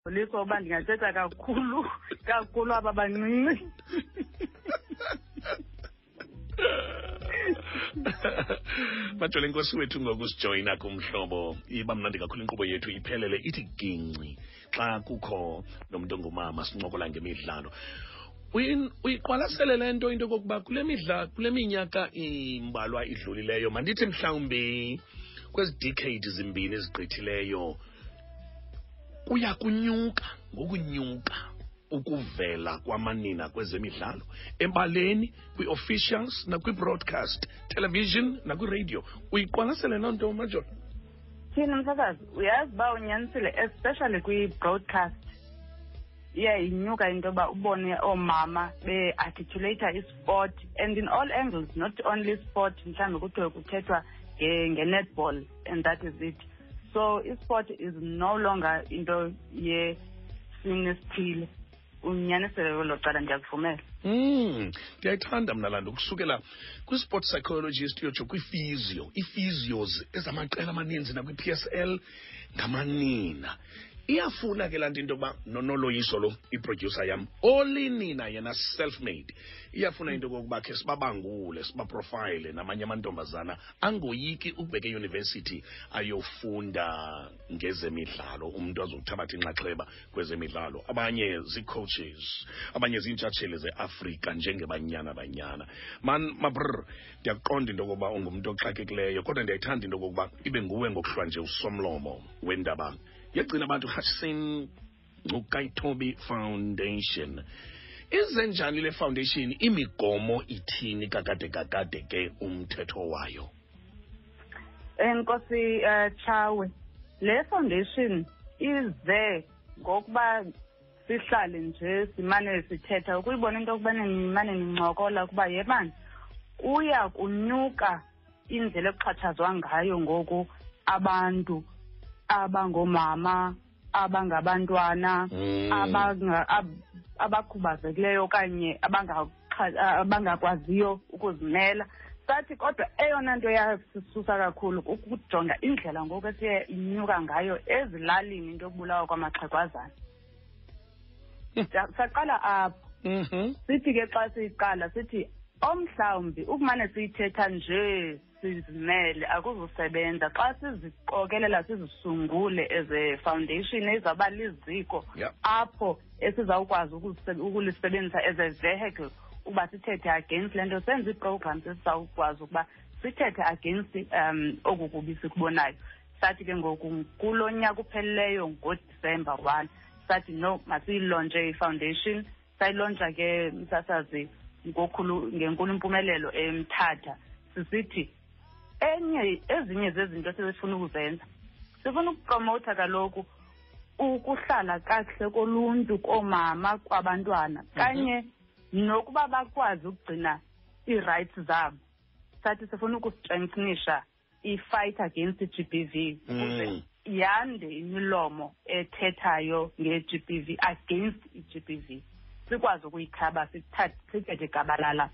Liso uba ndingathetha kakhulu kakhulu aba bancinci. Majole, inkosi wethu ngokusijoyina kumhlobo. Iba mnandi kakhulu inkqubo yethu iphelele ithi gingci xa kukho nomntu ongumama sincokola ngemidlalo. Uyiqwalasele le nto, into yokokuba kule midla, kule minyaka imbalwa idlulileyo, mandithi mhlawumbi kwezi decade zimbini ezigqithileyo, kuya kunyuka ngokunyuka ukuvela kwamanina kwezemidlalo ebaleni, kwi-officials nakwi-broadcast television nakwiradio. Uyiqwalasele loo nto, Major? Thina msasazi, uyazi uba unyanisile, especially kwi-broadcast iye inyuka into yoba ubone oomama be-articulata isport and in all angles, not only sport, mhlawumbi kuthiwe kuthethwa nge-netball and that is it. So isport is no longer into yesini esithile. Unyanisele kwelo cala, ndiyakuvumela. Ndiyayithanda mna laa nto, kusukela kwi-sport psychologist uyotsho kwi-physio, ii-physios ezamaqela amaninzi nakwi-PSL ngamanina. Iyafuna ke laa nto, into yokuba nonoloyiso lo, iproducer yam olinina yena self-made, iyafuna into yokokuba khe sibabangule, sibaprofile namanye amantombazana angoyiki ukubheka eyunivesithi ayofunda ngezemidlalo, umntu azokuthabatha inxaxheba kwezemidlalo. Abanye zii-coaches, abanye ziintshatsheli zeAfrika njengeBanyana Banyana. Man mabr, ndiyakuqonda into yokokuba ungumntu oxakekileyo, kodwa ndiyayithanda into yokokuba ibe nguwe ngokuhlwa nje usomlomo wendaba yegcina abantu Hutchison Ngcukaitobi Foundation. Ize njani le foundation? Imigomo ithini kakade kakade ke umthetho wayo? Enkosi, Tshawe. Le foundation ize ngokuba sihlale nje simane sithetha, ukuyibona into yokubana nimane nincokola ukuba yebani kuya kunyuka indlela ekuxhatshazwa ngayo ngoku abantu abangoomama, abangabantwana, abakhubazekileyo okanye abangakwaziyo ukuzimela. Sathi kodwa eyona nto yasisusa kakhulu kukujonga indlela ngoku esiye inyuka ngayo ezilalini into yokubulawa kwamaxhegwazana. Saqala apho. Sithi ke xa siyiqala sithi omhlawumbi ukumane siyithetha nje sizimele akuzusebenza, xa siziqokelela sizisungule as a foundation ezawuba liziko apho esizawukwazi ukulisebenzisa as a vehicle uba sithethe against le nto, senze ii-programs esizawukwazi ukuba sithethe against oku kubi sikubonayo. Sathi ke ngoku kulo nyaka upheleleyo ngoDisemba 1, sathi no, masiyilontshe i-foundation. Sayilontsha ke, msasazi, ngokhulu ngenkulu impumelelo eMthatha, sisithi enye ezinye zezinto esifuna ukuzenza, sifuna ukupromotha kaloku ukuhlala kakuhle koluntu, koomama, kwabantwana, kanye nokuba bakwazi ukugcina ii-rights zabo. Sathi sifuna ukustrengthenisha i-fight against i-GBV ukuze yande imilomo ethethayo nge-GBV, against i-GBV, sikwazi ukuyikhaba, sithethe gabalala.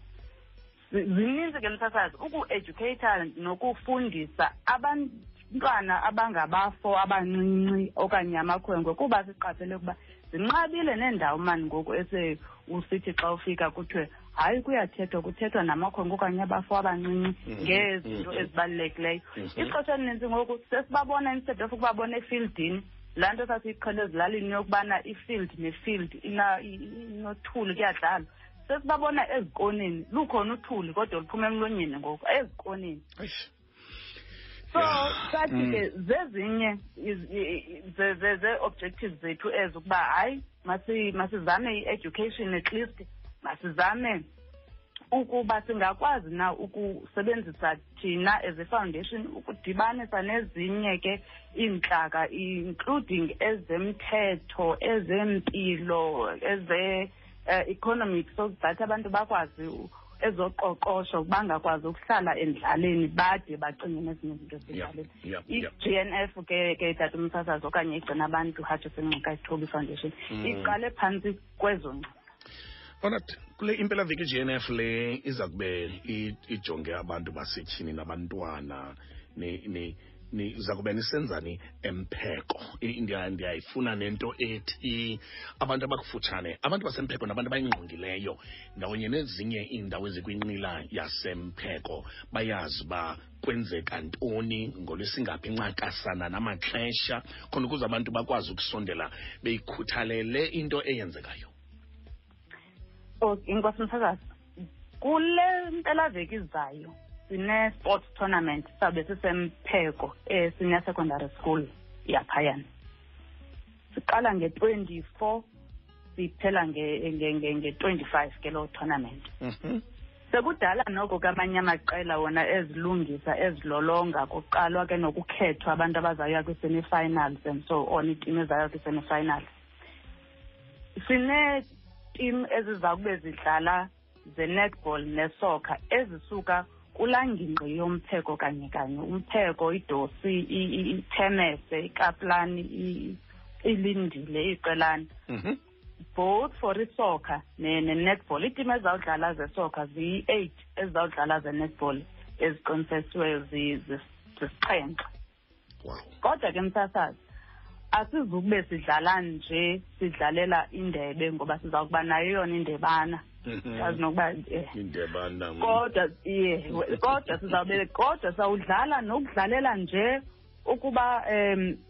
Zininzi ke msasazi, uku-educata nokufundisa abantwana abangabafo abancinci okanye amakhwenkwe, kuba siqaphele ukuba zinqabile neendawo mani ngoku ese usithi xa ufika kuthiwe hayi kuyathethwa, kuthethwa namakhwenkwe okanye abafo abancinci ngezinto ezibalulekileyo. Ixesha elininzi ngoku sesibabona, instead of ukubabona efieldini, laa nto sasiyiqhele ezilalini yokubana ifield nefield inothuli kuyadlalwa, sesibabona ezikoneni, lukhona uthuli kodwa luphuma emlonyeni ngoku ezikoneni. So sathi ke zezinye zee-objectives zethu ezo, ukuba hayi masizame i-education, at least masizame ukuba singakwazi na ukusebenzisa thina as a foundation ukudibanisa nezinye ke iintlaka, including ezemthetho, ezempilo, eze economic, so that abantu bakwazi ezoqoqosho bangakwazi ukuhlala endlaleni bade bacinge nezinye izinto ezidlaleni. I-GNF ke tata umsasazi, okanye igcina abantu Hutchison Ngcukaitobi Foundation, iqale phantsi kwezo ngcinga. Alright, kule impelaveki i-GNF le iza kube ijonge abantu basetyhini nabantwana. ni ni Niza kube nisenzani eMpheko? Ndiyayifuna nento ethi abantu abakufutshane, abantu baseMpheko nabantu abayingqongileyo ndawonye nezinye iindawo ezikwinqila yaseMpheko bayazi uba kwenzeka ntoni ngolwesingaphi ncakasana namaxesha, khona ukuze abantu bakwazi ukusondela beyikhuthalele into eyenzekayo. Inkosi msakazi, kule mpelaveki izayo sine-sports tournament, sabe siseMpheko e-senior secondary school yaphayana. Siqala nge-24, siphela nge-25 ke loo tournament. Sekudala noko ke amanye amaqela wona ezilungisa, ezilolonga, kuqalwa ke nokukhethwa abantu abazawuya kwi-semi-finals and so on, iitimu ezawuya kwi-semi-finals. Sineetim eziza kube zidlala ze-netball nesoccer ezisuka kulaa ngingqi yoMpheko kanye kanye, uMpheko, iDosi, iThemese, iKaplani, iLindile, iQelane. Both for isoccer ne-netball. Iitim ezizawudlala zesoccer ziyi-8, ezizawudlala ze-netball eziqinisekisiweyo zisixhenxe. Kodwa ke msasazi, asizukube sidlala nje sidlalela indebe, ngoba siza kuba nayo yona indebana. Yazi nokuba, Indebana. Kodwa, yeah, kodwa sizawube, kodwa sawudlala nokudlalela nje ukuba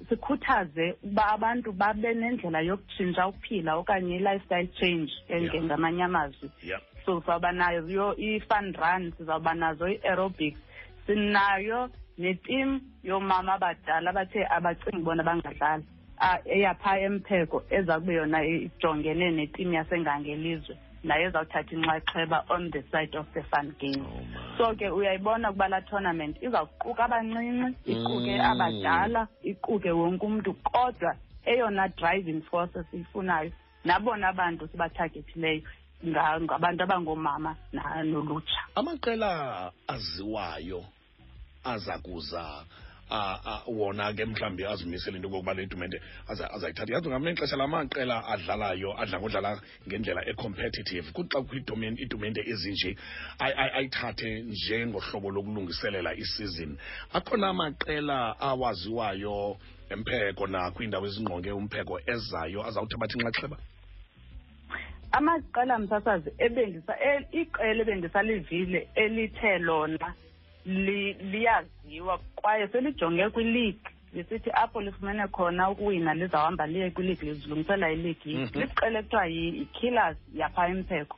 sikhuthaze ukuba abantu babe nendlela yokutshintsha ukuphila okanye i-lifestyle change, ngamanye amazwi. So sizawuba nayo yo i-fun run, sizawuba nazo i-aerobics, sinayo neteam yoomama abadala abathe abacingi bona bangadlala, eyapha eMpheko eza kube yona ijongene neteam yaseNgangelizwe, nayo ezawuthatha inxaxheba on the side of the fun game. Oh, man. So ke uyayibona ukuba laa tournament izawuquka abancinci, iquke abadala, iquke wonke umntu, kodwa eyona driving force esiyifunayo nabona bantu sibathagethileyo ngabantu abangoomama nolutsha. Amaqela aziwayo aza kuza, wona ke mhlawumbi azimisele into yokokuba le tumente azayithatha. Yazi ngamanye ixesha la maqela adlalayo adla ngodlala ngendlela e-competitive, kuthi xa kukho iitumente ezinje ayithathe njengohlobo lokulungiselela isizini. Akhona amaqela awaziwayo eMpheko nakwiindawo ezingqonge uMpheko ezayo azawuthabatha inxaxheba? Amaqela msasazi iqela ebendisalivile elithe lona liyaziwa kwaye selijonge kwi-league, lisithi apho lifumene khona ukuwina lizawuhamba liye kwi-league, lizilungisela i-league. Liqela ekuthiwa yi-Killers yapha eMpheko.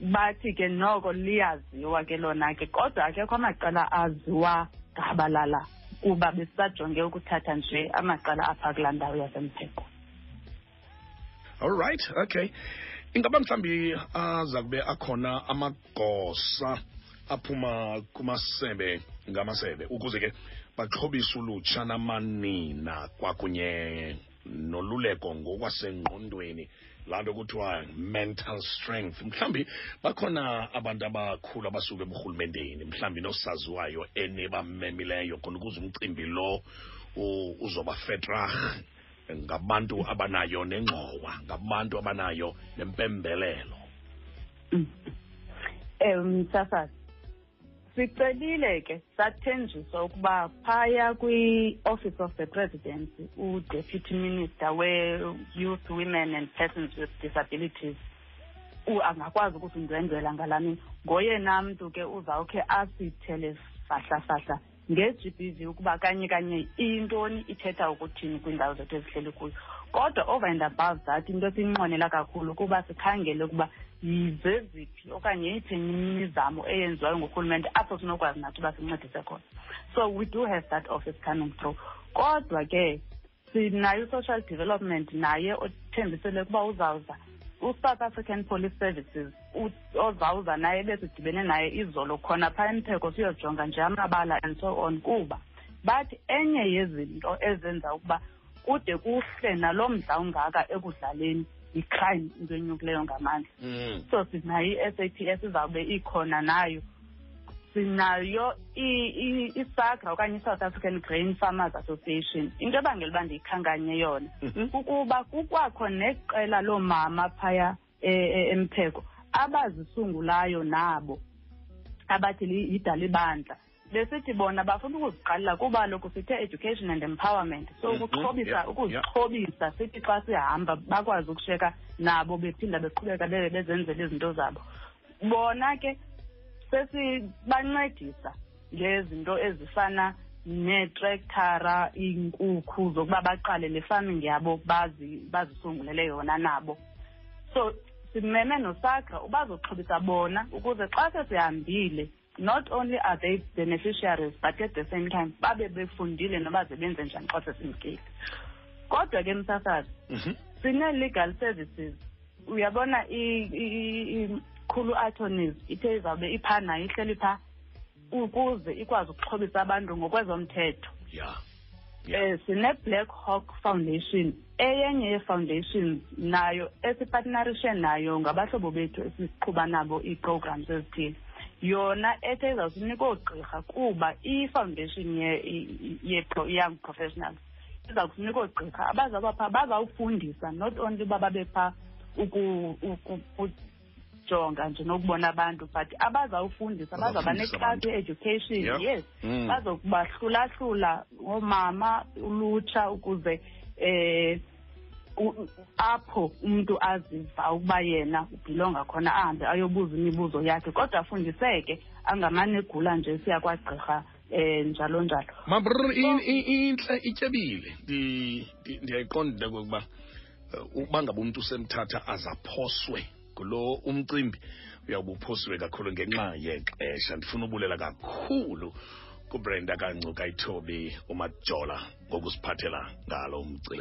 Bathi ke noko liyaziwa ke lona ke, kodwa akekho amaqela aziwa gabalala kuba besisajonge ukuthatha nje amaqela apha kulaa ndawo yaseMpheko. All right, okay. Ingaba mhlawumbi aza kube akhona amagosa aphuma kumasebe ngamasebe ukuze ke baxhobise ulutsha namanina kwakunye noluleko ngokwasengqondweni, laa nto kuthiwa mental strength? Mhlawumbi bakhona abantu abakhulu abasuka eburhulumenteni, mhlawumbi nosaziwayo enibamemileyo khona ukuze umcimbi lo uzoba fetrag ngabantu abanayo nengxowa, ngabantu abanayo nempembelelo. Msasazi, sicelile ke sathenjiswa ukuba phaya kwi-Office of the Presidency u-Deputy Minister we-Youth, Women and Persons with Disabilities angakwazi ukusindwendwela ngalaa mini. Ngoyena mntu ke uzawukhe asithele fahla-fahla nge-GBV ukuba kanye kanye iyintoni, ithetha ukuthini kwiindawo zethu ezihleli kuyo. Kodwa over and above that, into esiyinqwenela kakhulu kuba sikhangele ukuba zeziphi okanye yeyiphi imizamo eyenziwayo ngurhulumente apho sinokwazi nathi uba sincedise khona. So we do have that office coming through. Kodwa ke sinayo i-social development naye othembisele ukuba uzawuza, u-South African Police Services ozawuza naye, besidibene naye izolo khona phaa eMpheko siyojonga nje amabala and so on, kuba bathi enye yezinto ezenza ukuba kude kuhle nalo mdla ungaka ekudlaleni yi-crime, into enyukileyo ngamandla. So sinayo i-SAPS izawube ikhona nayo, sinayo iSAGRA okanye i-South African Grain Farmers Association. Into ebangela uba ndiyikhankanye yona kukuba kukwakho neqela loomama phaya eMpheko abazisungulayo nabo abathi yidalibandla. Besithi bona bafuna ukuziqalela kuba lokhu sithe education and empowerment, so ukuxhobisa, ukuzixhobisa, sithi xa sihamba bakwazi ukusheka nabo bephinda beqhubeka bezenzela izinto zabo. Bona ke sesibancedisa ngezinto ezifana neetrektara, iinkukhu zokuba baqale le farming yabo, bazisungulele yona nabo. So simeme noSAGRA ubazoxhobisa bona ukuze xa sesihambile, not only are they beneficiaries, but at the same time babe befundile noba zebenze njani xa sesimkile. Kodwa ke, msasazi, sine-legal services. Uyabona, ikhulu attorneys ithe izawube iphaa nayo, ihleli phaa ukuze ikwazi ukuxhobisa abantu ngokwezomthetho. Sine-Black Hawk Foundation, eyenye yee-foundations nayo esipartnerishe nayo, ngabahlobo bethu esiqhuba nabo ii-programs ezithile. Yona ethe izawusinika oogqirha kuba i-foundation ye-young professionals iza kusinika oogqirha abazawuba phaa, bazawufundisa, not only uba babe phaa ukujonga nje nokubona abantu, but abazawufundisa, bazawuba Bazawufundisa neklasi abantu. ye-education. Yes. Bazokubahlulahlula oomama, ulutsha, ukuze apho umuntu aziva ukuba yena ubhilonga khona ahambe ayobuza imibuzo yakhe, kodwa afundiseke, angamane egula nje siya kwagqirha njalo njalo. Mabrr, intle, ityebile. Ndiyayiqonda into yokokuba uba ngaba umntu usemthatha azaphoswe ngulo umcimbi, uyawube uphosiwe kakhulu ngenxa yexesha. Ndifuna ubulela kakhulu kuBrenda kaNgcukayithobi uMajola ngokusiphathela ngalo umcimbi.